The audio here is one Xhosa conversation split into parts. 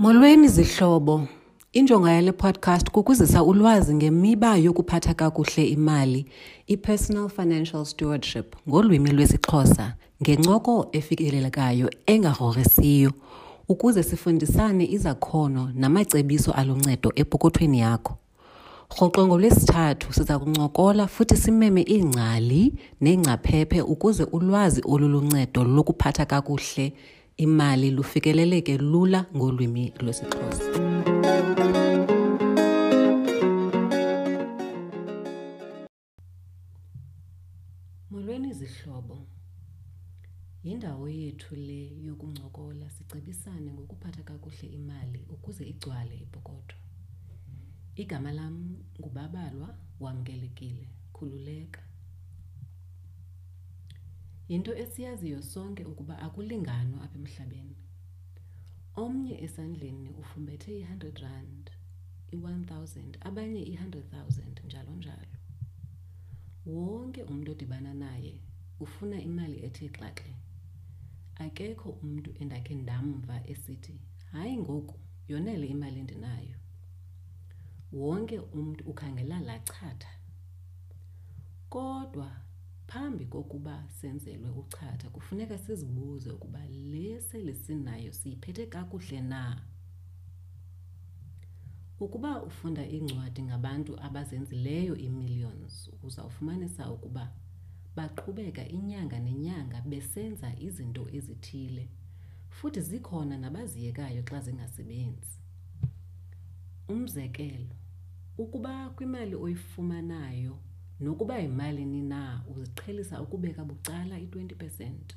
Molweni zihlobo. Injongo yale podcast kukuzisa ulwazi ngemiba yokuphatha kakuhle imali, i-personal financial stewardship ngolwimi lwesiXhosa ngencoko efikelelekayo engagrogrisiyo ukuze sifundisane izakhono namacebiso aluncedo epokothweni yakho. Rhoqo ngoLwesithathu siza kuncokola futhi simeme iingcali neengcaphephe ukuze ulwazi oluluncedo lokuphatha kakuhle imali lufikeleleke lula ngolwimi lwesiXhosa. Molweni zihlobo. Yindawo yethu le yokuncokola sicebisane ngokuphatha kakuhle imali ukuze igcwale ipokotho. Igama lam nguBabalwa, wamkelekile, khululeka. Yinto esiyaziyo sonke ukuba akulinganwa apha emhlabeni. Omnye esandleni ufumbethe i-hundred rand, i-one thousand, abanye i-hundred thousand, njalo njalo. Wonke umntu odibana naye ufuna imali ethe xaxe. Akekho umntu endakhe ndamva esithi, hayi ngoku yonele imali endinayo. Wonke umntu ukhangela laa chatha. Kodwa phambi kokuba senzelwe uchatha kufuneka sizibuze ukuba le sele sinayo siyiphethe kakuhle na. Ukuba ufunda iincwadi ngabantu abazenzileyo ii-millions, uzawufumanisa ukuba baqhubeka inyanga nenyanga besenza izinto ezithile futhi zikhona nabaziyekayo xa zingasebenzi. Umzekelo, ukuba kwimali oyifumanayo nokuba yimalini na uziqhelisa ukubeka bucala i-20 percent,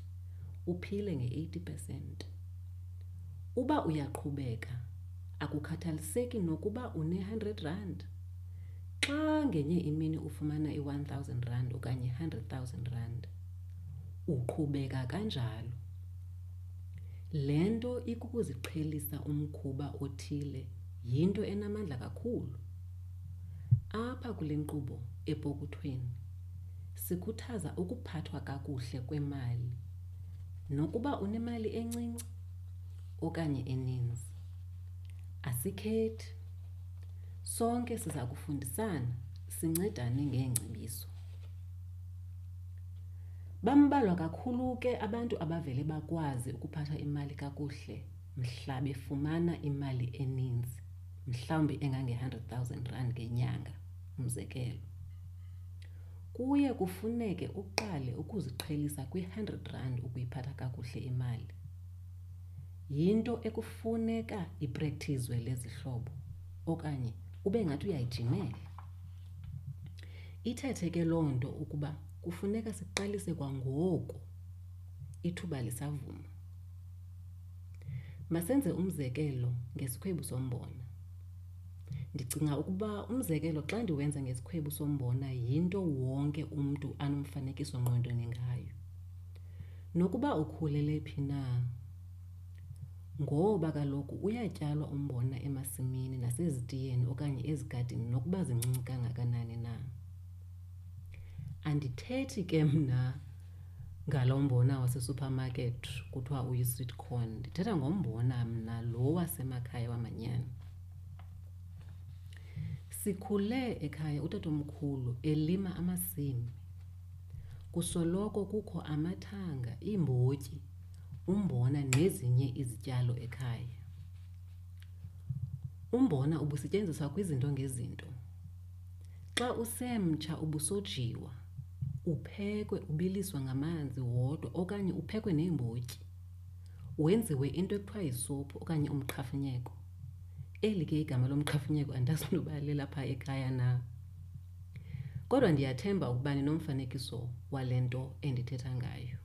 uphile nge-80 percent. Uba uyaqhubeka, akukhathaliseki nokuba une-hundred rand. Xa ngenye imini ufumana i-one thousand rand okanye i-hundred thousand rand, uqhubeka kanjalo. Le nto ikukuziqhelisa umkhuba othile yinto enamandla kakhulu. Apha kule nkqubo epokothweni sikhuthaza ukuphathwa kakuhle kwemali nokuba unemali encinci okanye eninzi. Asikhethi, sonke siza kufundisana sincedane ngeengcebiso. Bambalwa kakhulu ke abantu abavele bakwazi ukuphatha imali kakuhle mhla befumana imali eninzi, mhlawumbi engange-hundred thousand rand ngenyanga, umzekelo. Kuye kufuneke uqale ukuziqhelisa kwi-hundred rand ukuyiphatha kakuhle imali. Yinto ekufuneka iprektizwe le zihlobo okanye ube ngathi uyayijimela. Ithethe ke loo nto ukuba kufuneka siqalise kwangoku ithuba lisavuma. Masenze umzekelo ngesikhwebu sombona. Ndicinga ukuba umzekelo xa ndiwenza ngesikhwebu sombona yinto wonke umntu anomfanekiso ngqondweni ngayo. Nokuba ukhulele phi na, ngoba kaloku uyatyalwa umbona emasimini nasezitiyeni okanye ezigadini nokuba zincinci kangakanani na. Andithethi ke mna ngalo mbona wasesupermarket kuthiwa uyi-sweet corn, ndithetha ngombona mna lo wasemakhaya wamanyani. Sikhule ekhaya utatomkhulu elima amasimi. Kusoloko kukho amathanga, iimbotyi, umbona nezinye izityalo ekhaya. Umbona ubusetyenziswa kwizinto ngezinto. Xa usemtsha ubusojiwa, uphekwe ubiliswa ngamanzi wodwa okanye uphekwe neembotyi. Wenziwe into ekuthiwa yisophu okanye umqhafunyeko. Eli ke igama lomqhafunyeko andazi noba lelapha ekhaya na. Kodwa ndiyathemba ukuba ninomfanekiso wale nto endithetha ngayo.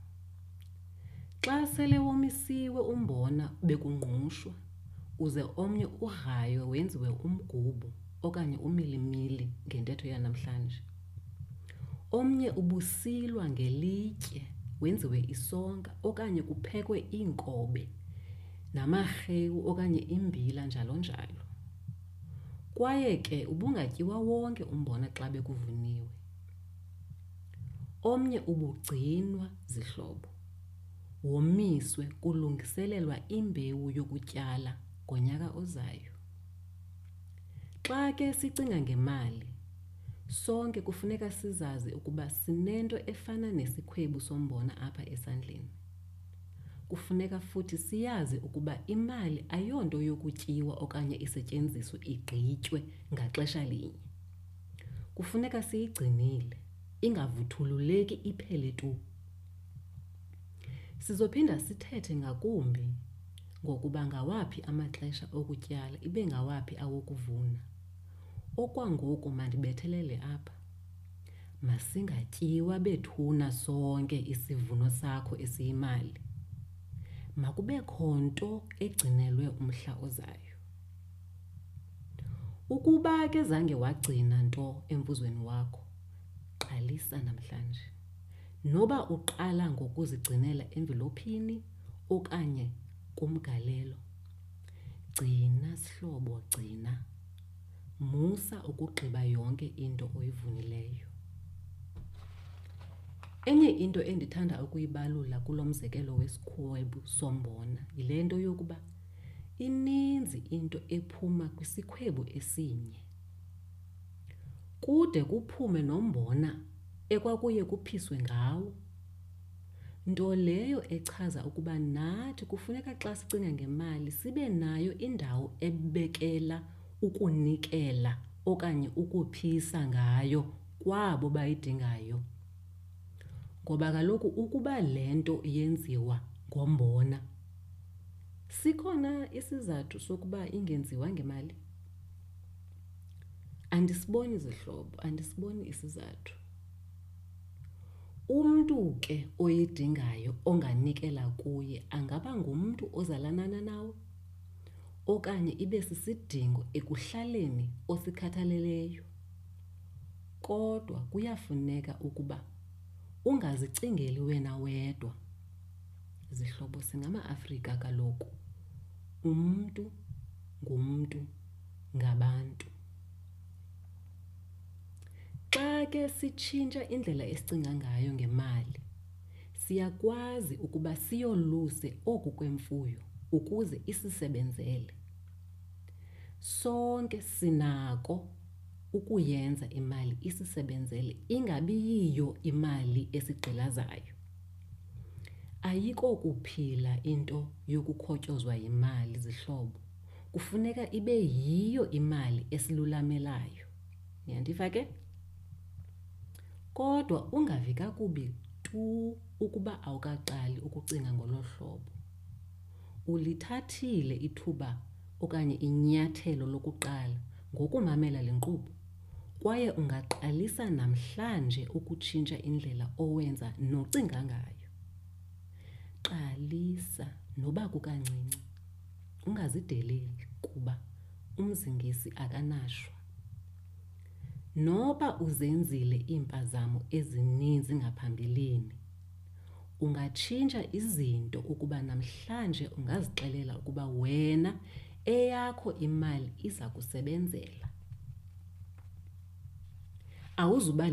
Xa sele womisiwe umbona bekungqushwa, uze omnye ugraywe wenziwe umgubo okanye umilimili ngentetho yanamhlanje. Omnye ubusilwa ngelitye wenziwe isonka okanye kuphekwe iinkobe namarhewu okanye imbila njalo njalo. Kwaye ke ubungatyiwa wonke umbona xa bekuvuniwe. Omnye ubugcinwa zihlobo, womiswe kulungiselelwa imbewu yokutyala ngonyaka ozayo. Xa ke sicinga ngemali, sonke kufuneka sizazi ukuba sinento efana nesikhwebu sombona apha esandleni. Kufuneka futhi siyazi ukuba imali ayonto yokutyiwa okanye isetyenziswe igqitywe ngaxesha linye. Kufuneka siyigcinile, ingavuthululeki iphele tu. Sizophinda sithethe ngakumbi ngokuba ngawaphi amaxesha okutyala ibe ngawaphi awokuvuna. Okwangoku mandibethelele apha. Masingatyiwa bethuna sonke isivuno sakho esiyimali. Makubekho nto egcinelwe umhla ozayo. Ukuba ke zange wagcina nto emvuzweni wakho, qalisa namhlanje. Noba uqala ngokuzigcinela emvilophini okanye kumgalelo. Gcina sihlobo, gcina. Musa ukugqiba yonke into oyivunileyo. Enye into endithanda ukuyibalula kulo mzekelo wesikhwebu sombona yile nto yokuba ininzi into ephuma kwisikhwebu esinye. Kude kuphume nombona ekwakuye kuphiswe ngawo. Nto leyo echaza ukuba nathi kufuneka xa sicinga ngemali sibe nayo indawo ebekela ukunikela okanye ukuphisa ngayo kwabo bayidingayo. Ngoba kaloku ukuba le nto yenziwa ngombona, sikhona isizathu sokuba ingenziwa ngemali? Andisiboni zihlobo, andisiboni isizathu. Umntu ke oyidingayo onganikela kuye angaba ngumntu ozalanana nawe okanye ibe sisidingo ekuhlaleni osikhathaleleyo. Kodwa kuyafuneka ukuba ungazicingeli wena wedwa. Zihlobo, singamaAfrika kaloku. Umntu ngumntu ngabantu. Xa ke sitshintsha indlela esicinga ngayo ngemali, siyakwazi ukuba siyoluse oku kwemfuyo ukuze isisebenzele. Sonke sinako ukuyenza imali isisebenzele, ingabi yiyo imali esigqilazayo. Ayikokuphila into yokukhotyozwa yimali, zihlobo. Kufuneka ibe yiyo imali esilulamelayo. Niyandiva ke? Kodwa ungavi kakubi tu ukuba awukaqali ukucinga ngolo hlobo. Ulithathile ithuba okanye inyathelo lokuqala ngokumamela le nkqubo kwaye ungaqalisa namhlanje ukutshintsha indlela owenza nocinga ngayo. Qalisa noba kukancinci, ungazideleli kuba umzingisi akanashwa. Noba uzenzile iimpazamo ezininzi ngaphambilini, ungatshintsha izinto ukuba namhlanje ungazixelela ukuba wena eyakho imali iza kusebenzela. Awuzuba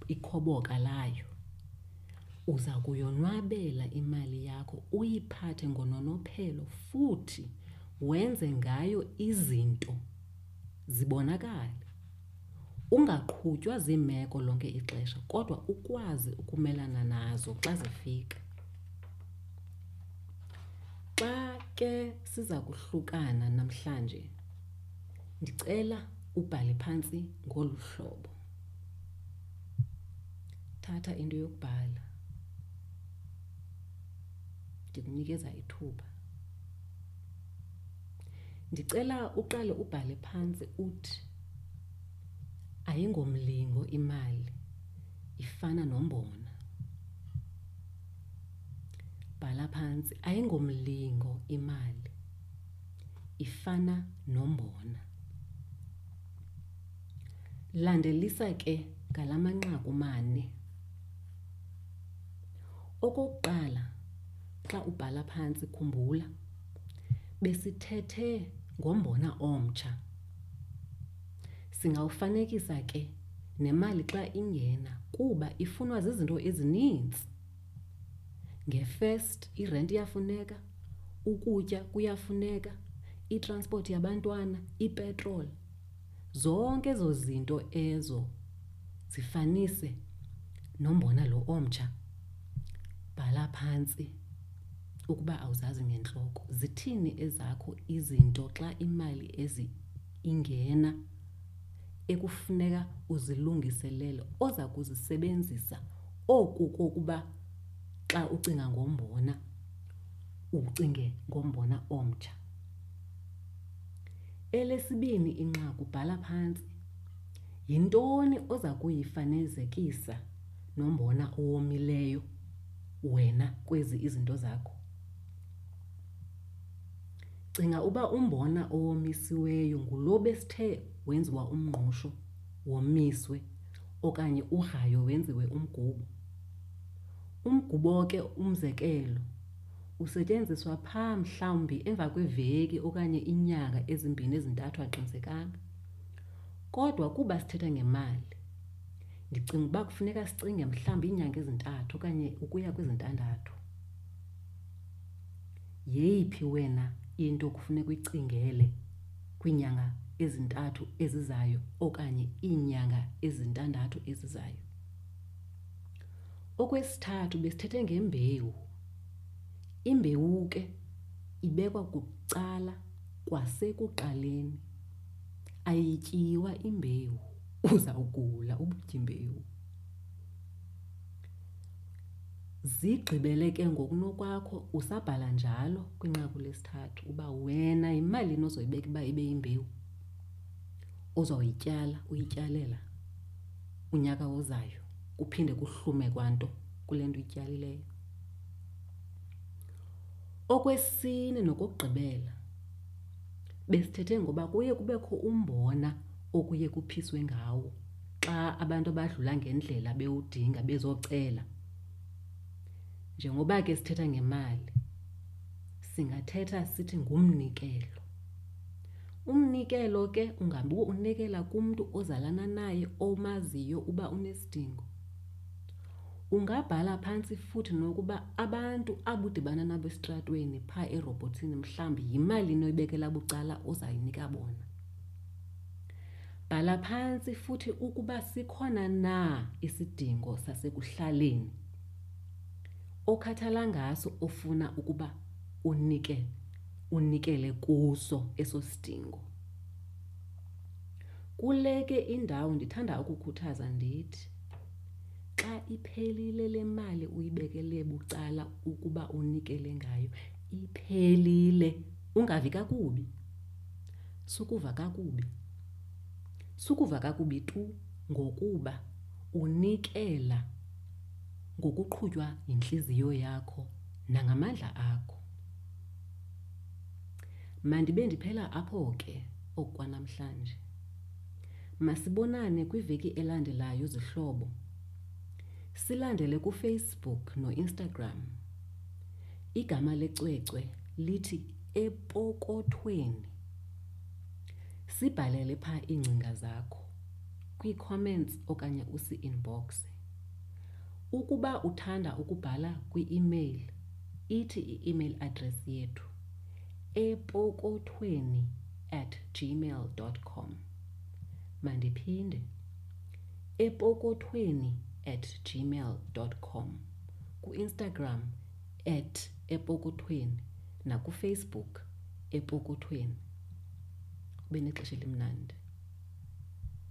ikhoboka layo. Uza kuyonwabela imali yakho, uyiphathe ngononophelo futhi wenze ngayo izinto zibonakale. Ungaqhutywa ziimeko lonke ixesha kodwa ukwazi ukumelana nazo xa zifika. Xa ke siza kuhlukana namhlanje, ndicela ubhale phantsi ngolu hlobo. Thatha into yokubhala. Ndikunikeza ithuba. Ndicela uqale ubhale phantsi uthi ayingomlingo imali, ifana nombona. Bhala phantsi ayingomlingo imali, ifana nombona. Landelisa ke ngala manqaku mane. Okokuqala, xa ubhala phantsi khumbula besithethe ngombona omtsha. Singawufanekisa ke nemali xa ingena kuba ifunwa zizinto ezininzi. Nge-first irenti iyafuneka, ukutya kuyafuneka, Itransport yabantwana, ipetrol. Zonke ezo zinto ezo zifanise nombona lo omtsha. Bhala phantsi ukuba awuzazi ngentloko. Zithini ezakho izinto xa imali ezi ingena ekufuneka uzilungiselele oza kuzisebenzisa oku kokuba xa ucinga ngombona ucinge ngombona omtsha. Elesibini inqaku, bhala phantsi. Yintoni oza kuyifanezekisa nombona owomileyo wena kwezi izinto zakho? Cinga uba umbona owomisiweyo ngulo besithe wenziwa umngqusho womiswe okanye ugraywe wenziwe umgubo. Umgubo ke umzekelo usetyenziswa phaa mhlawumbi emva kweveki okanye inyanga ezimbini ezintathu aqinisekanga. Kodwa kuba sithetha ngemali, ndicinga uba kufuneka sicinge mhlawumbi iinyanga ezintathu okanye ukuya kwezintandathu. Yeyiphi wena into kufuneka uyicingele kwiinyanga ezintathu ezizayo okanye iinyanga ezintandathu ezizayo? Okwesithathu besithethe ngembewu. Imbewu ke ibekwa kucala kwasekuqaleni. Ayityiwa imbewu, uzawugula ubutya imbewu. Zigqibele ke ngokunokwakho usabhala njalo kwinqaku lesithathu uba wena yimalini ozoyibeka uba ibe yimbewu ozoyityala uyityalela unyaka ozayo kuphinde kuhlume kwanto kule nto uyityalileyo. Okwesine nokokugqibela, besithethe ngoba kuye kubekho umbona okuye kuphiswe ngawo xa abantu abadlula ngendlela bewudinga bezocela. Njengoba ke sithetha ngemali, singathetha sithi ngumnikelo. Umnikelo ke ungabe unikela kumntu ozalana naye omaziyo uba unesidingo. Ungabhala phantsi futhi nokuba abantu abudibana nabo esitratweni phaa erobhothini mhlawumbi yimalini oyibekela bucala ozayinika bona. Bhala phantsi futhi ukuba sikhona na isidingo sasekuhlaleni okhathala ngaso ofuna ukuba unike unikele kuso eso sidingo. Kule ke indawo ndithanda ukukhuthaza ndithi xa iphelile le mali uyibekele bucala ukuba unikele ngayo, iphelile, ungavi kakubi. Sukuva kakubi. Sukuva kakubi tu ngokuba unikela ngokuqhutywa yintliziyo yakho nangamandla akho. Mandibe ndiphela apho ke okwanamhlanje. Masibonane kwiveki elandelayo zihlobo. Silandele kuFacebook noInstagram. Igama lecwecwe lithi Epokothweni. Sibhalele phaa iingcinga zakho kwii-comments okanye usi-inboxe. Ukuba uthanda ukubhala kwi-email, ithi i-email address yethu epokothweni@gmail.com. Mandiphinde, epokothweni@gmail.com. Ku-Instagram at epokothweni nakuFacebook epokothweni. Ube nexesha elimnandi.